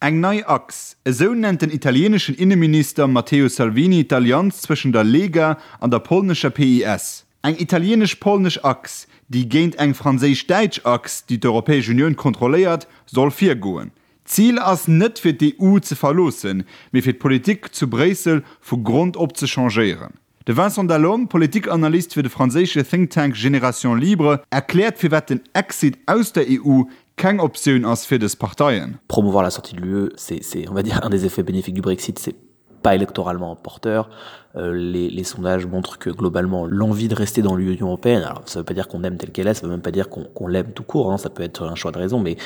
Eng nei Achs, esou nennt den italieeneschen Inneminister Matteo Salvini d'Allianz zwëschen der Lega an der polnescher PiS. Eng italieenesch-polnesch Achs, déi géint eng franséisch-däitsch Achs, déi d'Europäesch Unioun kontrolléiert, soll virgoen. D'Zil ass net fir d'EU ze verloossen, mee fir d'Politik zu Bréissel vu Grond op ze changéieren. De Vincent Delhomme, Politikanalyst fir de franséische Think Tank Génération Libre, erkläert firwat den Exit aus der EU keng Optioun ass fir dës Parteien. Promouvoir la sortie de l'UE, c'est on va dire un des effets bénéfiques du Brexit, c'est pas électoralement porteur. Euh, les, les sondages montrent que globalement l'envie de rester dans l'Union européenne, alors ça veut pas dire qu'on aime telle qu'elle est, ça veut même pas dire qu'on qu l'aime tout court, hein, ça peut être un choix de raison, mais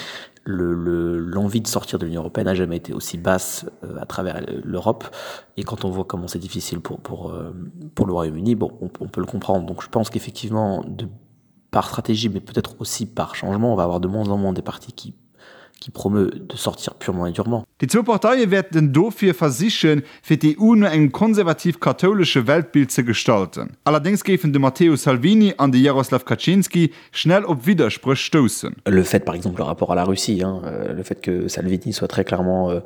l'envie le, de sortir de l'Union européenne n'a jamais été aussi basse euh, à travers l'Europe. Et quand on voit comment c'est difficile pour, pour, euh, pour le Royaume-Uni, bon, on, on peut le comprendre. Donc je pense qu'effectivement, par stratégie, mais peut-être aussi par changement, on va avoir de moins en moins des partis qui qui promeut de sortir purement et durement. Déi zwou Parteie wäerten dofir versichen, fir d'EU no engem konservativ-kathoulesche Weltbild ze gestalten. Allerdéngs géifen de Matteo Salvini an de Jarosław Kaczyński schnell op Widderspréch stoussen. Le fait par exemple le rapport à la Russie, hein, euh, le fait que Salvini soit très clairement euh,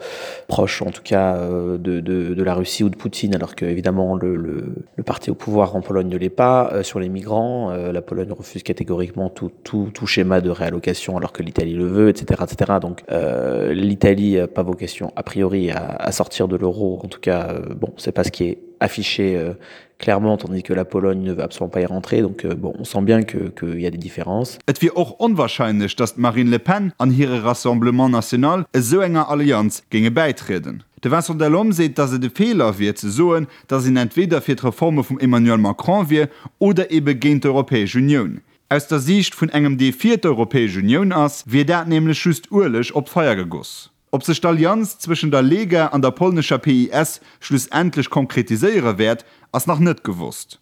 proche en tout cas euh, de, de, de la Russie ou de Poutine alors que évidemment le, le, le parti au pouvoir en Pologne ne l'est pas euh, sur les migrants euh, la Pologne refuse catégoriquement tout, tout, tout schéma de réallocation alors que l'Italie le veut etc etc donc euh, l'Italie n'a pas vocation a priori à, à sortir de l'euro en tout cas euh, bon c'est pas ce qui est affiché euh, clairement tandis que la Pologne ne veut absolument pas y rentrer donc euh, bon on sent bien que qu'il y a des différences. Et wier och onwahrscheinlech, datt d'Marine Le Pen an hire Rassemblement National esou enger Allianz géinge bäitrieden. De Vincent Delhomme seet, datt et e Feeler wier ze soen, datt een entweder fir d'Reforme vum Emmanuel Macron wier oder ebe géint d'Europäesch Unioun. Aus der Siicht vun engem dee fir d'Europäesch Unioun ass, wier dat nämlech just Ueleg op d'Feier gegoss. Ob sech d'Allianz zwëschen der Lega an der polnescher PiS schlussendlech konkretiséiere wäert, ass nach net gewosst.